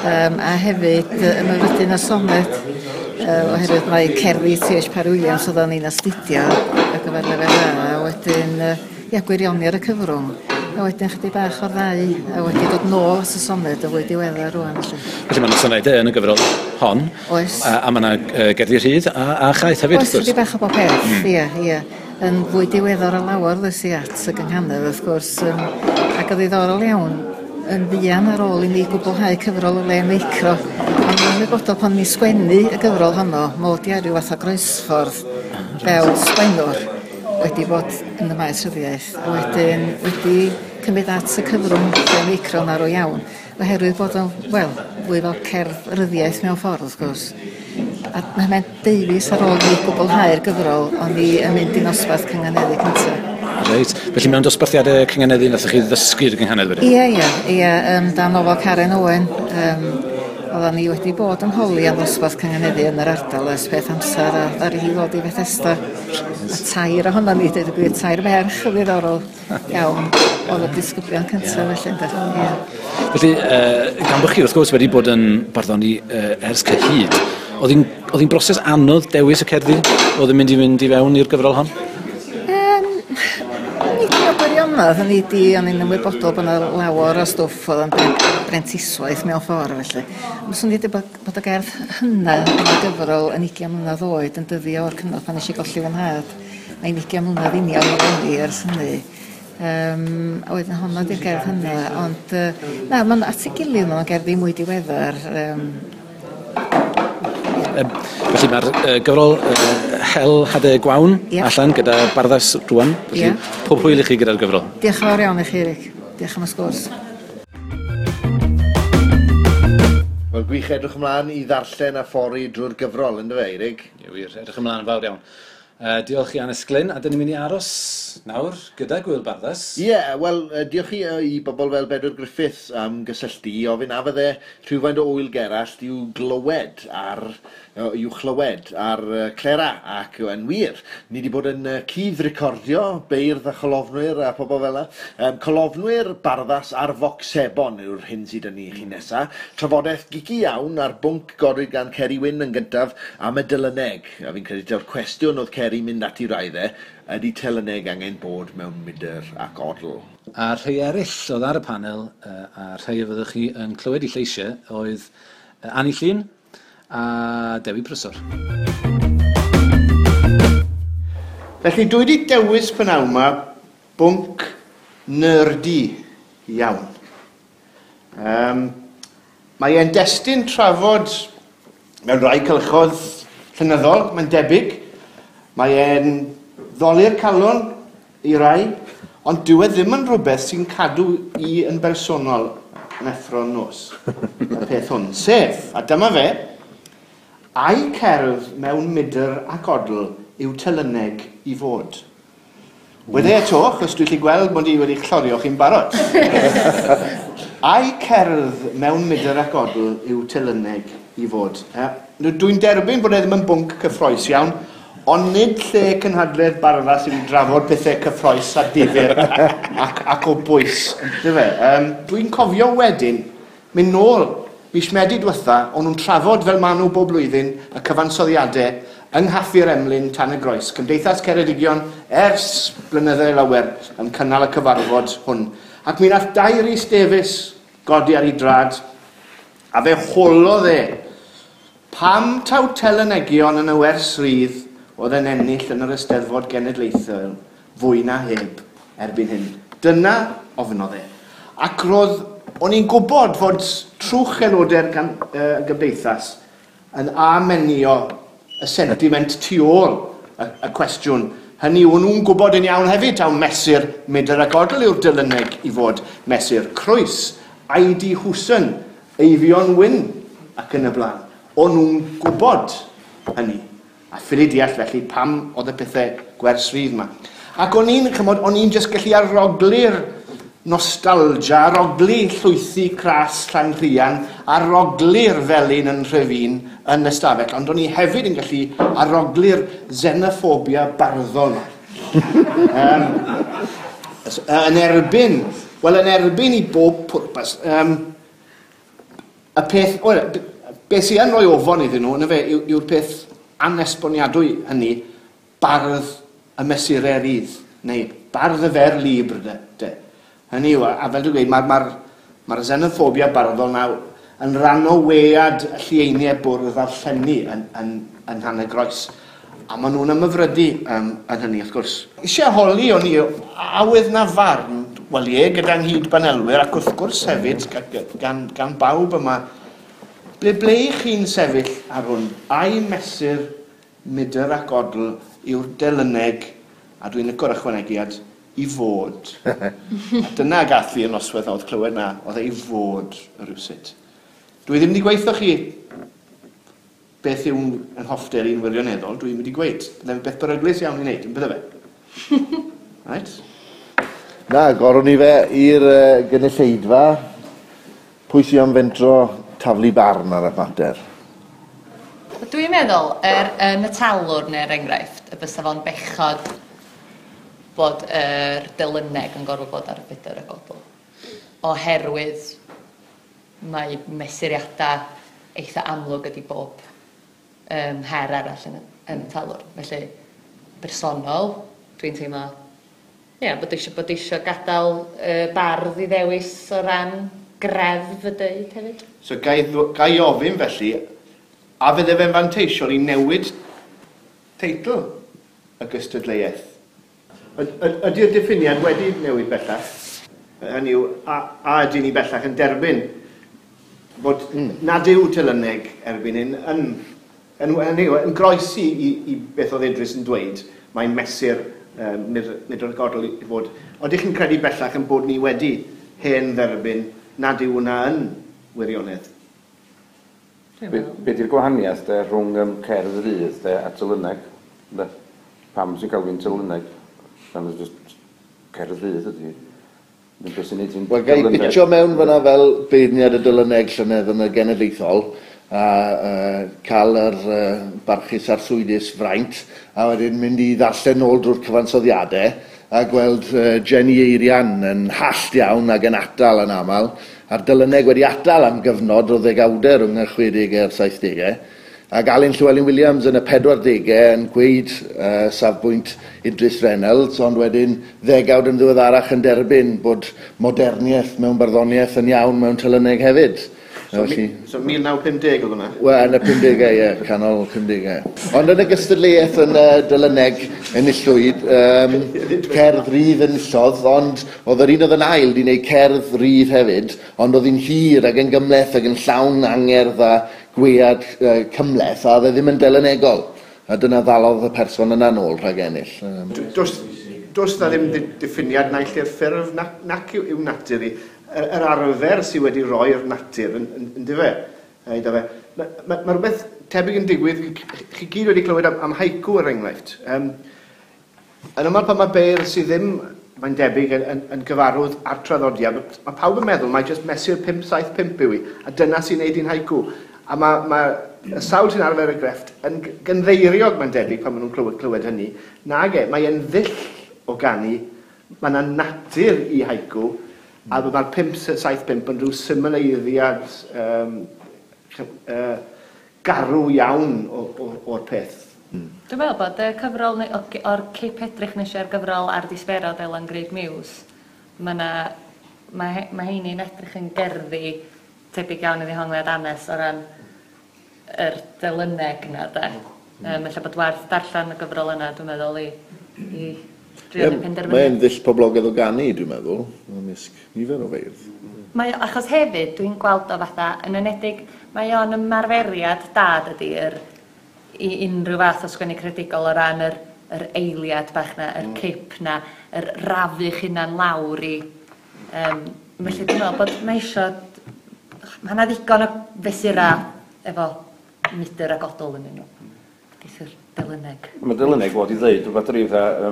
A hefyd ymhyfrydu a sonet, oherwydd mae cerddi T.H. Parry Williams oedden ni'n astudio ar gyfer lefel A, a wedyn ia, gwirioni ar y cyfrwng. A wedyn chydig bach o'r ddau, a wedi dod nôl at y soned y fwy diweddar rwan. Felly mae yna sonedau yn y gyfrol hon. Oes. A mae yna gerddi rhydd a chaeth hefyd. Oes, chydig bach o bob peth, ie, ie. Yn fwy diweddar o lawer ddes i at y gynghanedd, wrth gwrs, ac yn ddiddorol iawn, yn fuan ar ôl i mi gwblhau cyfrol o le meicro. Ond yn ymwybodol pan mi sgwennu y gyfrol honno, mod i ar ryw fath o groesffordd fel sgwennwr wedi bod yn y maes rhyddiaeth, a wedyn wedi cymryd at y cyfrwng lle meicro yn arw iawn, oherwydd bod o'n, wel, fwy fel cerdd ryddiaeth mewn ffordd, wrth gwrs. A mae'n deufis ar ôl i gwblhau'r gyfrol, o'n i yn mynd i nosbarth cynganeddu cyntaf. Reit. Felly mewn dosbarthiadau cynganeddu nathoch chi ddysgu'r gynghanedd wedyn? Ie, dan ofal Karen Owen. Oedden ni wedi bod yn holi am ddosbarth cynganeddu yn yr ardal ers peth amser, a ddaru hi ddod i Fethesda. A tair ohonon ni, dweud y gwir, tair merch yn ddiddorol iawn, oedd y disgyblion cyntaf felly. Yeah. Felly, gan bod chi wrth gwrs wedi bod yn barddoni ers cyhyd, oedd hi'n broses anodd dewis y cerddi oedd yn mynd i fynd i fewn i'r gyfrol hon? Nid o gwirionedd, o'n i'n ymwybodol bod yna lawer o stwff oedd yn brentiswaith mewn ffordd felly. Ond swn i wedi bod y gerdd hynna yn y gyfrol yn 20 mlynedd oed yn dyddio o'r cyfnod pan nes i golli fy nhad. Mae'n 20 mlynedd union i fyny ers hynny. A wedyn honno di'r gerdd hynna, ond na, mae'n at ei gilydd, mae'n gerddi mwy diweddar. Felly mae'r gyfrol Hel Hadau Gwaun allan gyda Barddas rwan. Felly pob hwyl i chi gyda'r gyfrol. Diolch yn fawr iawn i chi, Eric. Diolch am y sgwrs. Wel, gwych edrych ymlaen i ddarllen a ffori drwy'r gyfrol, ynddo fe, Eric? Ie, wir, edrych ymlaen yn fawr iawn. Diolch i Annes Glynn, a dyn ni'n mynd i aros nawr gyda Gwyl Barddas. Ie, wel, diolch i bobl fel Bedwyr Griffiths am gysylltu i ofyn a fydde rhywfaint o Ŵyl Gerallt i'w glywed ar, i'w chlywed ar Clera, ac yn wir, ni wedi bod yn cudd-recordio beirdd a cholofnwyr a pobl fel yna. Colofnwyr Barddas ar Vox Sebon yw'r hyn sydd yn ni chi nesa. Trafodaeth geeky iawn ar bwnc godwyd gan Ceri Wyn yn gyntaf am y dylyneg. A fi'n credu taw'r cwestiwn oedd Ceri mynd ati raidde, ydy telyneg angen bod mewn mydr ac odl. A rhai eraill oedd ar y panel, a rhai o fyddwch chi yn clywed i lleisiau, oedd Anni Llŷn a Dewi Prysor. Felly dwi wedi dewis p'nawn yma bwnc nerdy iawn. Mae e'n destun trafod mewn rhai cylchoedd llenyddol, mae'n debyg. Mae e'n ddoli'r calon i rai, ond dyw e ddim yn rhywbeth sy'n cadw i yn bersonol yn effro'n nos, y peth hwn. Sef, a dyma fe, ai cerdd mewn mydr ac odl yw telyneg i fod. Wede eto, achos dwi'n gallu gweld mod i wedi chlorio chi'n barod. Ai cerdd mewn mydr ac odl yw telyneg i fod. Dwi'n derbyn bod e ddim yn bwnc cyffrous iawn, ond nid lle cynhadledd Barddas sy'n drafod pethau cyffrous a difyr ac o bwys. Dwi'n cofio wedyn, mynd nôl mis Medi diwetha, o'n nhw'n trafod fel maen nhw bob blwyddyn y cyfansoddiadau yng Nghaffi'r Emlyn Tan y Groes. Cymdeithas Ceredigion ers blynyddoedd lawer yn cynnal y cyfarfod hwn. Ac mi nath Dai Rhys Davies godi ar ei drad, a fe holodd e pam taw telynegion yn y wers rydd oedd yn ennill yn yr Eisteddfod Genedlaethol fwy na heb erbyn hyn. Dyna ofynodd e. Ac roedd, o'n i'n gwybod fod trwch aelodau'r gymdeithas yn amenio y sentiment tu ôl y cwestiwn. Hynny, o'n nhw'n gwybod yn iawn hefyd taw mesur mydr ac odl yw'r dylyneg i fod mesur Croes, I.D. Hwson, Eifion Wyn ac yn y blaen. O'n nhw'n gwybod hynny. A ffili deall felly pam oedd y pethau gwers rhydd yma. Ac o'n i'n, chymod, o'n i'n jyst gallu arogli'r nostalgia, arogli llwythi cras Llanrhian, arogli'r felin yn Nhrefin yn y stafell, ond o'n i hefyd yn gallu arogli'r xenophobia barddol yma. Yn erbyn, wel yn erbyn i bob pwrpas, y peth, wel, beth sy'n yn rhoi ofon iddyn nhw, yna fe, yw'r peth anesboniadwy hynny, bardd y mesurau rydd, neu bardd y fer libr, de. Hynny yw, a fel dwi'n gweud, mae'r xenophobia barddol na yn rhan o wead y llieiniau bwrdd a'r llenni yn Nhanygroes. A maen nhw'n ymhyfrydu yn hynny, wrth gwrs. Eisiau holi o'n i, awydd na farn, wel ie, gyda nghyd-banelwyr, ac wrth gwrs hefyd, gan bawb yma, ble i chi'n sefyll ar hwn? Ai mesur mydr ac odl yw'r delyneg, a dwi'n licio'r ychwanegiad, i fod. A dyna gath fi y noswaith oedd clywed na, oedd e i fod rhywsut. Dwi ddim wedi gweithio chi beth yw'n yn hoffter i'n wirioneddol, dwi'n wedi gweud. Bydde'n beth beryglus iawn i wneud, yn bydde fe? Right? Na, gorwn ni fe i'r gynulleidfa. Pwy sy'n am fentro taflu barn ar y mater? Dwi'n meddwl, yn y talwrn er enghraifft, y bysa fo'n bechod bod yr delyneg yn gorfod bod ar y fydr y godl. Oherwydd mae mesuriadau eitha amlwg ydi bob her arall yn y talwrn. Felly, bersonol, dwi'n teimlo ie, bod eisiau gadael bardd i ddewis o ran greddf y deud hefyd. So, gai ofyn felly, a fydde fe'n fanteisiol i newid teitl y gystadleuaeth? Ydy'r diffiniad wedi newid bellach? Hynny yw, a ydy ni bellach yn derbyn bod nad yw telyneg erbyn hyn yn groesi i beth oedd Idris yn dweud, mae'n mesur mydr ac odl i fod. Ydych chi'n credu bellach yn bod ni wedi hen dderbyn nad yw hwnna yn wirionedd? Be di'r gwahaniaeth de, rhwng cerdd rydd de, a telyneg? Pam sy'n cael fi'n telyneg? Pan just cerdd rydd ydy. Wel, gai pitio mewn fyna fel beirniad y dylyneg llynedd yn y genedlaethol a cael yr barchus a'r swydus fraint a wedyn mynd i ddarllen nôl drwy'r cyfansoddiadau a gweld Jenny Eirian yn hallt iawn ac yn atal yn aml a'r dylyneg wedi atal am gyfnod o ddegawdau rhwng y 60au a'r 70au ac Alun Llywelyn Williams yn y 40au yn gweud safbwynt Idris Reynolds, ond wedyn ddegawd yn ddiweddarach yn derbyn bod moderniaeth mewn barddoniaeth yn iawn mewn telyneg hefyd. So, so 1950 oedd hwnna? Wel, yn y 50au, ie, canol 50au. Ond yn y gystadleuaeth yn y dylyneg enillwyd, cerdd rydd enillodd, ond oedd yr un oedd yn ail di wneud cerdd rydd hefyd, ond oedd hi'n hir ac yn gymhleth ac yn llawn angerdd a gwead cymhleth, a oedd e ddim yn delynegol. A dyna ddalodd y person yna nôl rhag ennill. Does na ddim diffiniad naill i'r ffurf nac yw natur i. Yr arfer sydd wedi roi'r natur yn dyfe. Mae rhywbeth tebyg yn digwydd, chi gyd wedi clywed am haiku er enghraifft. Yn ymwneud pan mae beirdd sydd ddim, mae'n debyg, yn gyfarwydd â'r traddodiad, mae pawb yn meddwl mae jyst mesur 5, 7, 5 yw i, a dyna sy'n neud i'n haiku. A mae y sawl sy'n arfer y grefft yn gynddeiriog, mae'n debyg, pan maen nhw'n clywed hynny. Nage, mae e'n ddull o ganu, mae yna natur i haiku, a mae'r 5, 7, 5 yn rhyw symleiddiad garw iawn o'r peth. Dwi'n meddwl bod y cyfrol, o'r cip edrych nes i ar gyfrol ar Disberod Elan Grug Muse, mae heini'n edrych yn gerddi tebyg iawn i ddehongliad Anes o ran yr delyneg yna, de. Felly bod werth darllen y gyfrol yna, dwi'n meddwl, i drio penderfynu. Mae'n ddull poblogaidd o ganu, dwi'n meddwl, ymysg nifer o feirdd. Mae, achos hefyd, dwi'n gweld o fatha, yn enedig, mae o'n ymarferiad da, dydy, i unrhyw fath o sgwennu creadigol o ran yr eiliad bach na, yr cip na, yr rafu'ch hunan lawr i. Felly dwi'n meddwl bod mae isio, mae yna ddigon o fesurau efo mydr ac odl yn nhw. Geith yr delyneg. Mae delyneg fod i ddeud rhywbeth rhyw fatha,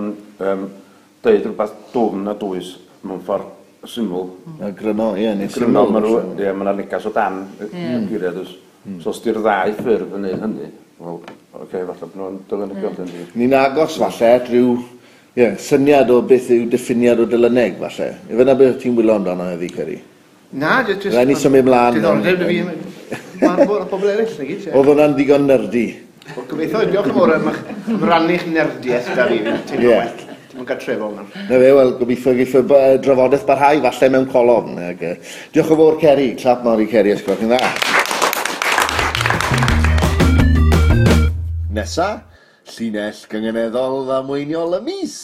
deud rhywbeth dwfn a dwys mewn ffordd syml. A gryno, ie, neu Gryno, syml. ma' rw, ie, ma' 'na negas o dan y geiriau, does. So os di'r ddau ffurf yn neud hynny, wel, oce, falle bod nhw'n delynegol, mm. Ni'n agos falle at ryw ie, syniad o beth yw diffiniad o delyneg falle. Ife na beth ti'n wylo amdano heddi, Ceri? Na, jyst... Rhaid ni symud mlaen. Diddordeb dy fi. Mae'n bod pobl eraill, na gyd. ie. Oedd hwnna'n ddigon nerdy. Wel, gobeithio, diolch yn fawr am am rannu'ch nerdiaeth da fi. Fi'n teimlo well. Teimlo'n gartrefol nawr. Na fe, wel, gobeithio geith y drafodaeth barhau falle mewn colofn. Ag, diolch yn fawr, Ceri. Clap mawr i Ceri, os gwelwch chi'n dda. Nesa, llinell gynganeddol ddamweiniol y mis.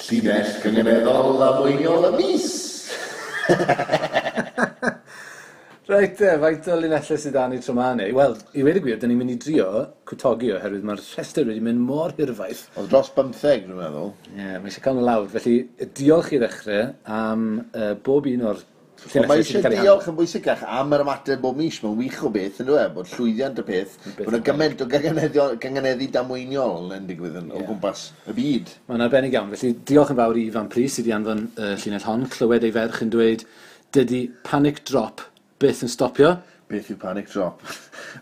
Llinell gynganeddol ddamweiniol y mis. Reit te, faint o linellau sydd 'da ni tro 'ma neu? Wel, i weud y gwir, 'dyn ni'n mynd i drio cwtogi oherwydd mae'r rhestr wedi mynd mor hirfaith. Oedd dros 15, dwi'n meddwl. Ie, yeah, mae eisiau cael nhw lawr. Felly, diolch i ddechrau am bob un o'r Ond llinellau mae sydd eisiau wedi cael eu diolch yn bwysicach am yr ymateb bob mis. Mae'n wych o beth, yn dweud, bod llwyddiant y peth, bod yna gymaint o gynganeddu damweiniol yn digwydd yn, o gwmpas y byd. Mae'n arbennig iawn. Felly, diolch yn fawr i Ifan Prys sydd wedi anfon llinell hon. Clywed ei ferch yn dweud, dydy panic drop byth yn stopio. Beth yw panic drop?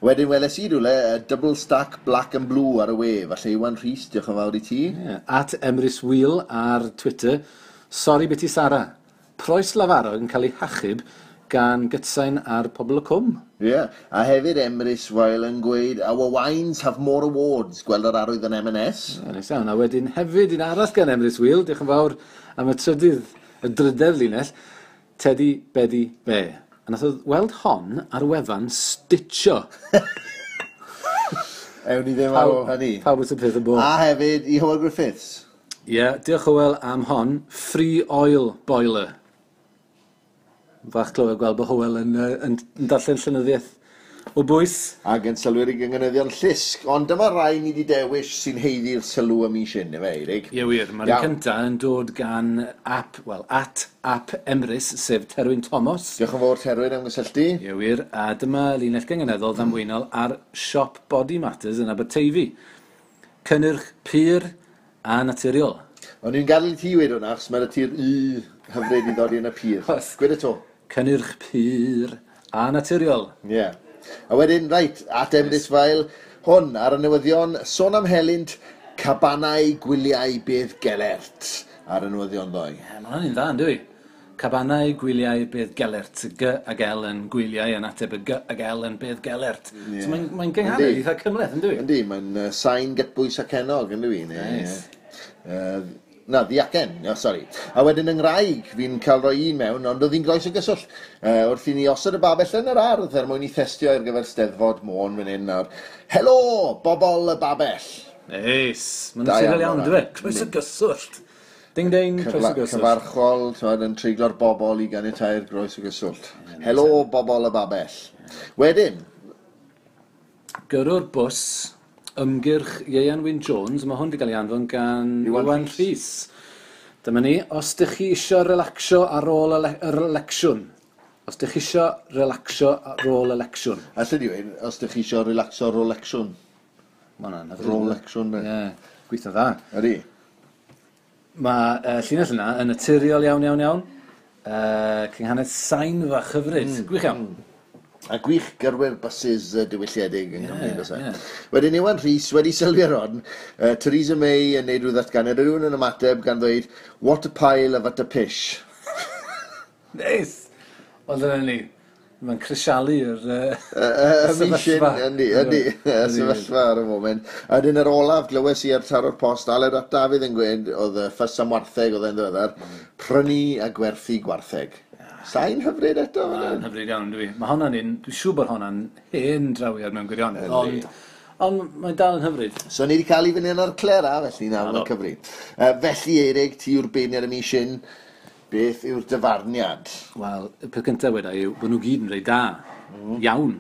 Wedyn weles i rhywle, double stack black and blue ar y we. Falle Iwan Rhys, diolch yn fawr i ti. Yeah. At Emrys Wheel ar Twitter. Sori biti Sara. Croes lafarog yn cael ei hachub gan gytsain ar Pobl y Cwm. Ie, yeah. A hefyd Emrys Weil yn gweud, our wines have more awards, gweld yr arwydd yn M&S. Ie, neis iawn. A wedyn hefyd un arall gan Emrys Wheel, diolch yn fawr am y trydydd, y drydedd linell, Teddy Beddy Be. A nath o weld hon ar wefan Stitcho. Ewn ni ddim ar ôl hynny. Pawb wrth y peth yn bod. A hefyd i Hywel Griffiths. Ie, yeah, diolch Hywel am hon. Free oil boiler. Fach clywed gweld bod Hywel yn darllen llenyddiaeth o bwys. Ac yn sylwi'r i gynganeddion llusg. Ond dyma rai ni wedi dewis sy'n haeddu'r sylw y mis hyn, efe, Eirig? Ie wir, mae'r Iawn. cynta yn dod gan app, wel, at app Emrys, sef Terwyn Thomas. Diolch yn fawr Terwyn am gysylltu. Ie wir, a dyma linell gynganeddol ddamweinol ar siop Body Matters yn Aberteifi. Cynnyrch pur a naturiol. O'n i'n gadael i ti weud hwnna, achos mae'r ti'r u hyfryd i ddod i yn y pur. Gwed y to. Cynnyrch pur a naturiol. Ie. Yeah. A wedyn, reit, at Emrys Fael, hwn ar y newyddion, sôn am helynt, cabanau gwyliau Bedd Gelert ar y newyddion ddoe. Ie, mae hwnna'n un dda, yn dwi? Cabanau gwyliau Bedd Gelert. G ag L yn gwyliau yn ateb y G ag L yn Bedd Gelert. Ie. So mae'n mae gynghanedd Yndi. eitha cymhleth, yn dwi? Yndi, mae'n sain gytbwys ac enog, yn dwi? Nice. Na, ddiacen, no, sori. A wedyn yng Nghraig, fi'n cael rhoi un mewn, ond oedd hi'n groes o gyswllt. Wrth i ni osod y babell yn yr ardd er mwyn i thestio ar gyfer Steddfod Môn fan hyn nawr. Helo, bobol y babell. Neis. Mae'n Da naturiol iawn iawn, hwnna. dwi? Croes o gyswllt. Ding ding, croes o gyswllt. Cyfarchol, t'mod, yn treiglo'r bobol i ganiatáu'r groes o gyswllt. Helo, bobol y babell. Wedyn, Gyrrwr bws, ymgyrch Ieuan Wyn Jones, mae hwn wedi cael ei anfon gan Iwan Iwan Rhys. Dyma ni, os dych chi isio relaxio ar ôl yr election. Os dych chi isio relaxio ar ôl election. Alla di weud, os dych chi isio relaxo ar ôl lecsiwn. Ma' hwnna'n hyfryd. Rolexiwn, de. Ie, gweithio dda. Ydy. Mae llinell yna yn naturiol iawn, iawn, iawn. Cynghanedd sain fach hyfryd. Gwych iawn. A gwych gyrwyr buses diwylliedig yng Nghymru, Ie, yeah, ie. Wedyn Iwan Rhys wedi sylwi ar hon, Theresa May yn neud rhyw ddatganiad, a rhywun yn ymateb gan ddweud, what a pile of utter pish. Neis! Wel, dyna ni. Mae'n crisialu'r Y mis hyn, sefyllfa. yndi, yndi, y sefyllfa ar y foment. A wedyn yr olaf, glywes i ar taro'r post, Aled ap Dafydd yn gweud, oedd y ffys am wartheg oedd e'n ddiweddar, prynu a gwerthu gwartheg. Sain hyfryd eto, fan Mae'n hyn? hyfryd iawn, dwi. Mae hwnna'n un, dwi'n siŵr bod hwnna'n hen drawiad mewn gwirionedd, Yndi. ond mae'n dal yn hyfryd. So ni wedi cael ei fyny yn ar Clera, felly na, mae'n cyfri. Felly, Eirig, ti yw'r beirniad y mis hyn, beth yw'r dyfarniad? Wel, y peth cyntaf weda yw bod nhw gyd yn reit da, iawn,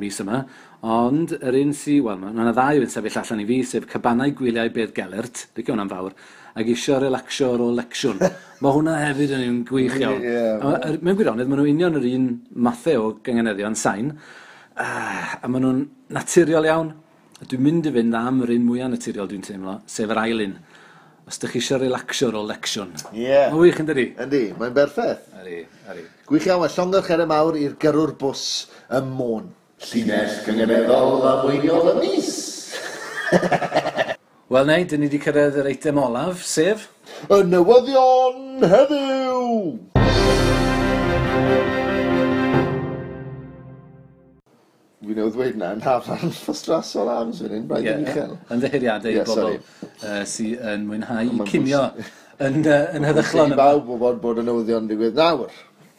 mis yma. Ond yr un sy, wel, mae yna ddau yn sefyll allan i fi, sef Cabanau Gwyliau Bedd Gelert, licio hwnna'n fawr, ac isio relaxio ar ôl lecsiwn. Mae hwnna hefyd yn un gwych iawn. Ie. A mewn gwirionedd, maen nhw union yr un mathau o gynganeddion sain, a maen nhw'n naturiol iawn. Dwi'n mynd i fynd am yr un mwyaf naturiol dwi'n teimlo, sef yr ail un. Os ydych chi eisiau relaxio ar ôl lecsiwn. Ie. Yeah. Mae'n wych yn dydi? Yndi, mae'n berffaith. Ydi, ydi. Gwych iawn, a llongyfarchiadau mawr i'r gyrrwr bws ym Môn. Llinell gynganeddol ddamweiniol y mis. Wel neu, dyn ni wedi cyrraedd yr eitem olaf, sef... Y newyddion heddiw! Fi newydd ddweud na, yn hafan ffostrasol arms fan hyn, braidd yn uchel. Ymddiheuriadau i Ie, bobl sori. sydd yn mwynhau Mae'n cinio yn heddychlon. I bawb wybod bod y newyddion yn digwydd nawr.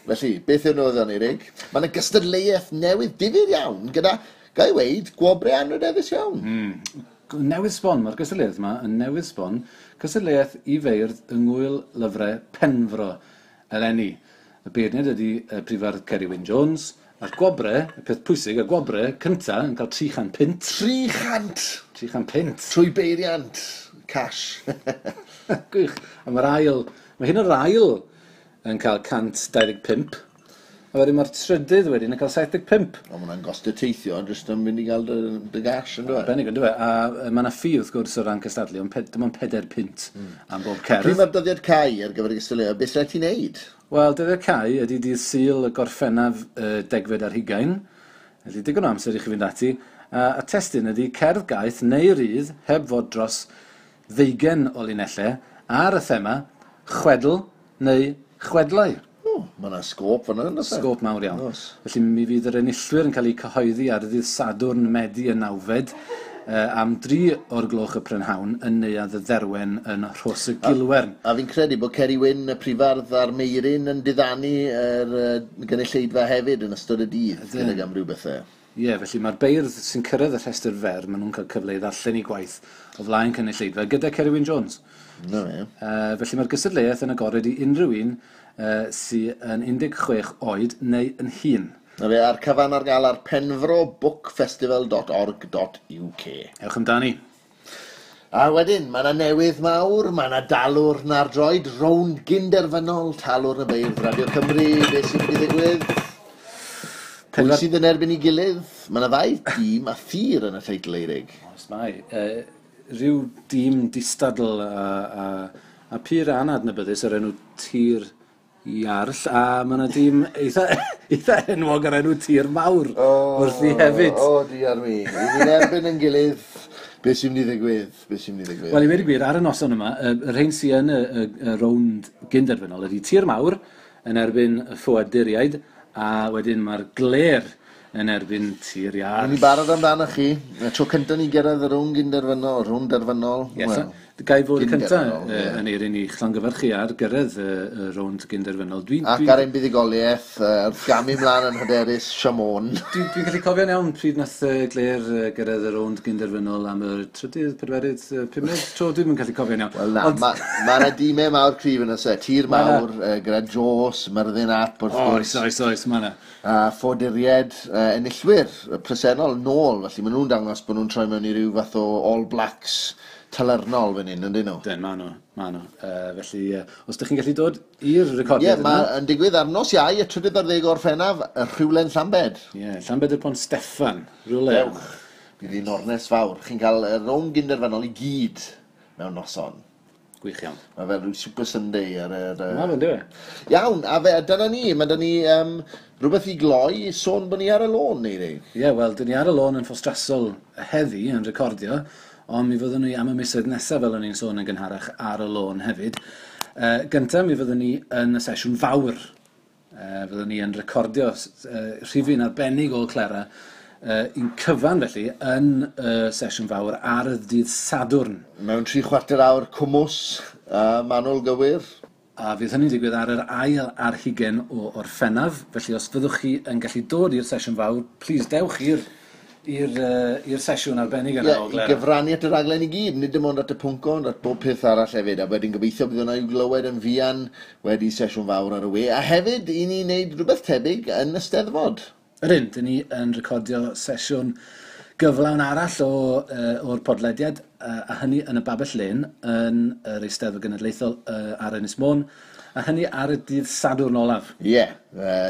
Felly, beth yw'r newyddion, Eirig? Mae yna gystadleuaeth newydd difyr iawn gyda, ga i weud, gwobrau anrhydeddus iawn. Newydd sbon, mae'r gystadleuaeth yma yn newydd sbon, cystadleuaeth i feirdd yng Ngŵyl Lyfrau Penfro eleni. Y beirniad ydy Prifardd Ceri Wyn Jones, a'r gwobre, y peth pwysig, y gwobre cynta yn cael 300 punt. 300! 300 punt. Trwy beiriant. Cash. Gwych. A mae'r ail, mae hyn o'r ail yn cael 125. A wedyn mae'r trydydd wedyn yn cael 75. O, mae hwnna'n gostio teithio, ond jyst yn mynd i gael dy gash, yn dweud. Arbennig, yn dweud. A mae yna ffi wrth gwrs o ran cystadlu, ond dim ond 4 punt am bob Pryd cerdd. mae'r dyddiad cau ar gyfer y gystadleuaeth, beth rhaid ti wneud? Wel, dyddiad cau ydy dydd Sul y Gorffennaf 20. Felly digon o amser i chi fynd ati. A testun ydy cerdd gaeth neu rydd heb fod dros 20 o linellau ar y thema chwedl neu chwedlau. O, mae yna sgôp fan'na, yn does e? Sgôp mawr iawn. Oes. Felly mi fydd yr enillwyr yn cael eu cyhoeddi ar ddydd Sadwrn Medi y 9fed am 3 o'r gloch y prynhawn yn Neuadd y Dderwen yn Rhos y Gilwern. A fi'n credu bod Ceri Wyn, y prifardd a'r Meirin yn diddanu yr gynulleidfa hefyd yn ystod y dydd, gydag amryw bethau. Ie, felly mae'r beirdd sy'n cyrraedd y rhestr fer, maen nhw'n cael cyfle i ddarllen eu gwaith o flaen cynulleidfa gyda Ceri Wyn Jones. Na fe. Felly mae'r gystadleuaeth yn agored i unrhyw un sydd yn 16 oed neu yn hŷn. Na fe, a'r cyfan ar gael ar penfrobookfestival.org.uk. Ewch amdani. A wedyn, mae yna newydd mawr, mae yna dalwrn ar droed, rownd gynderfynol, talwrn y beirdd Radio Cymru, beth sy'n mynd i ddigwydd? Pwy sydd yn erbyn ei gilydd? Mae yna ddau dîm a thir yn y teitl, Eirig. Oes mae. Rhyw dîm distadl a pur anadnabyddus o'r enw Tir Iarll, a mae yna dîm eitha enwog o'r enw Tir Mawr wrthi hefyd. O, diar mi. I ni'n erbyn yn gilydd, beth sy'n mynd i ddigwydd? Beth sy'n mynd i ddigwydd? Wel, i weud y gwir, ar y noson yma, y rhain sydd yn y rownd gynderfynol ydy Tir Mawr yn erbyn y ffoaduriaid, a wedyn mae'r Glêr yn erbyn Tir Iarll. Ni'n barod amdano chi. Y tro cyntaf ni gyrraedd y rownd gynderfynol, rownd derfynol. Ie, Wel, ga i fod y cyntaf gynderfynol, ie. yn eirin i llongyfarchu ar gyrraedd y rownd gynderfynol. Ac ar ein buddugoliaeth, wrth gamu mlaen yn hyderus, Siamon. Dwi'n gallu cofio'n iawn pryd nath Glêr gyrraedd y rownd gynderfynol am y trydydd, pedwerydd, pumed tro, dwi'm yn gallu cofio'n iawn. Wel na, ma' 'na dîmau mawr cryf yn oes e. Tir Ma' 'na. Mawr, gyda Jos, Myrddin Ap, wrth gwrs. Oes, oes, oes, ma' 'na. A ffoaduriaid enillwyr presennol nôl, felly maen nhw'n dangos bod nhw'n troi mewn i ryw fath o All Blacks talyrnol fan hyn, yndyn nhw? Dyn, ma' nhw, ma' nhw. Felly, os ydych chi'n gallu dod i'r recordiad Ie, ma' yn digwydd ar nos Iau, y 13 Orffennaf, y Rhywle'n Llambed. Ie, Llambed y Pont Steffan, rhywle. Dewch, bydd hi'n ornes fawr. Chi'n cael y rownd gynderfynol i gyd mewn noson. Gwych iawn. Mae fel rhyw Super Sunday ar yr... Ma' fe'n dyw e? Iawn, a fe, dyna ni, mae dyna ni rhywbeth i gloi, sôn bod ni ar y lôn, neu rei. Ie, wel, dyn ni ar y lôn yn Ffostrasol heddi yn recordio, ond mi fyddwn ni am y misoedd nesaf, fel o'n i'n sôn yn gynharach, ar y lôn hefyd. Gynta, mi fyddwn ni yn y sesiwn fawr. Fyddwn ni yn recordio rhifyn arbennig o Clera, un cyfan felly, yn y sesiwn fawr ar y dydd Sadwrn. Mewn 3/4 awr cwmws, manwl gywir. A fydd hynny'n digwydd ar yr 21 o Orffennaf, felly os fyddwch chi yn gallu dod i'r sesiwn fawr, please dewch i'r sesiwn arbennig yna Ie, o i Glera. gyfrannu at y raglen i gyd, nid dim ond at y pwnc ond at bob peth arall hefyd, a wedyn gobeithio bydd hwnna i'w glywed yn fuan wedi sesiwn fawr ar y we, a hefyd i ni wneud rhywbeth tebyg yn y Steddfod. Ydyn, dyn ni yn recordio sesiwn gyflawn arall o'r podlediad, a hynny yn y Babell Lên yn yr Eisteddfod Genedlaethol ar Ynys Môn. A hynny ar y dydd Sadwrn olaf. Ie, yeah,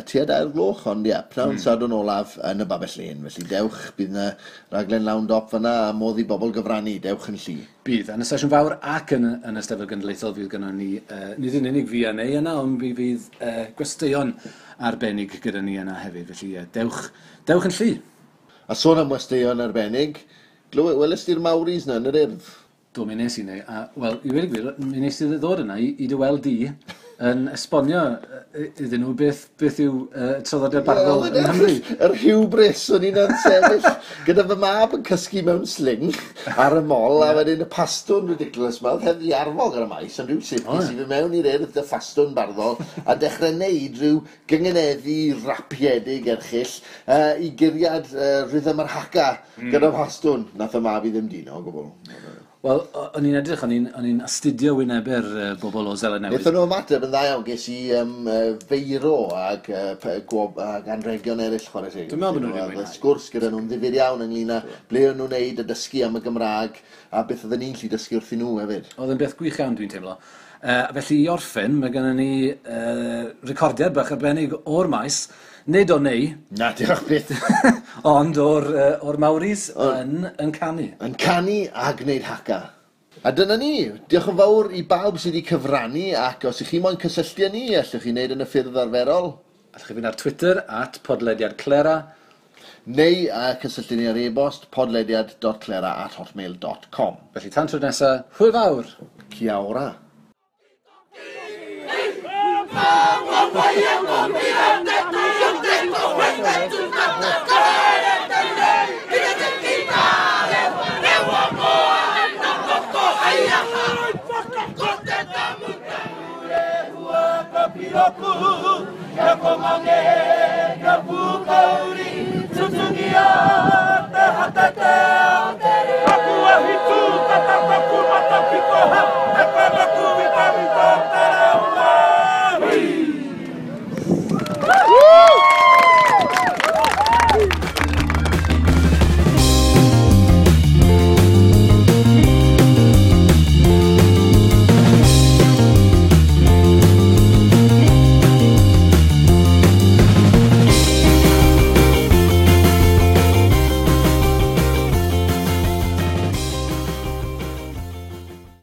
tua 2 gloch, ond ie, pnawn Sadwrn olaf yn y Babell Lên. Felly dewch, bydd yna raglen lawn dop fyna a modd i bobl gyfrannu, dewch yn llu. Bydd, yn y sesiwn fawr ac yn y Steddfod Genedlaethol fydd gynnon ni, nid yn unig fi a Nei yna, ond mi fydd gwesteion arbennig gyda ni yna hefyd. Felly dewch, dewch yn llu. A sôn am westeion arbennig, welest ti'r Maoris na yn yr Urdd? Do, mi nes i neu. A, wel, i weud y gwir, mi nes i ddod yna i dy weld di yn esbonio iddyn nhw beth yw traddodiad barddol yng Nghymru. Yr hubris, o'n i'n sefyll gyda fy mab yn cysgu mewn sling ar y mol, a wedyn y pastwn ridiculous ma, oedd heb ddiarfog ar y maes, ond rhywsut nes i fy mewn i'r Urdd y ffastwn barddol, a dechrau neud rhyw gyngeneddu rapiedig erchyll i guriad rhythm yr haka gyda phastwn. Nath y mab i ddim dino o gwbl. Wel, o'n i'n edrych, o'n i'n astudio wynebau'r bobl o Seland Newydd. Wnaethon nhw ymateb yn dda iawn, ges i feiro ag anrhegion eraill, chwarae teg. Dwi'n meddwl bod nhw wedi mwynhau. Sgwrs gyda nhw'n ddifyr iawn ynglyn â ble o'n nhw'n neud a dysgu am y Gymraeg a beth oedden ni'n gallu dysgu wrthyn nhw hefyd. Oedd yn beth gwych iawn, dwi'n teimlo. Felly i orffen, mae gennym ni recordiad bach arbennig o'r maes, nid o Nei. Na, diolch byth. Ond o'r Maoris yn canu. Yn canu a gwneud haka. A dyna ni. Diolch yn fawr i bawb sydd wedi cyfrannu, ac os ych chi moyn cysylltu â ni, allwch chi wneud yn y ffyrdd arferol. Allwch chi fynd ar Twitter, @podlediadclera. Neu cysylltu ni ar e-bost podlediad.clera@hotmail.com. Felly tan tro nesaf, hwyl fawr! Kia ora! Ka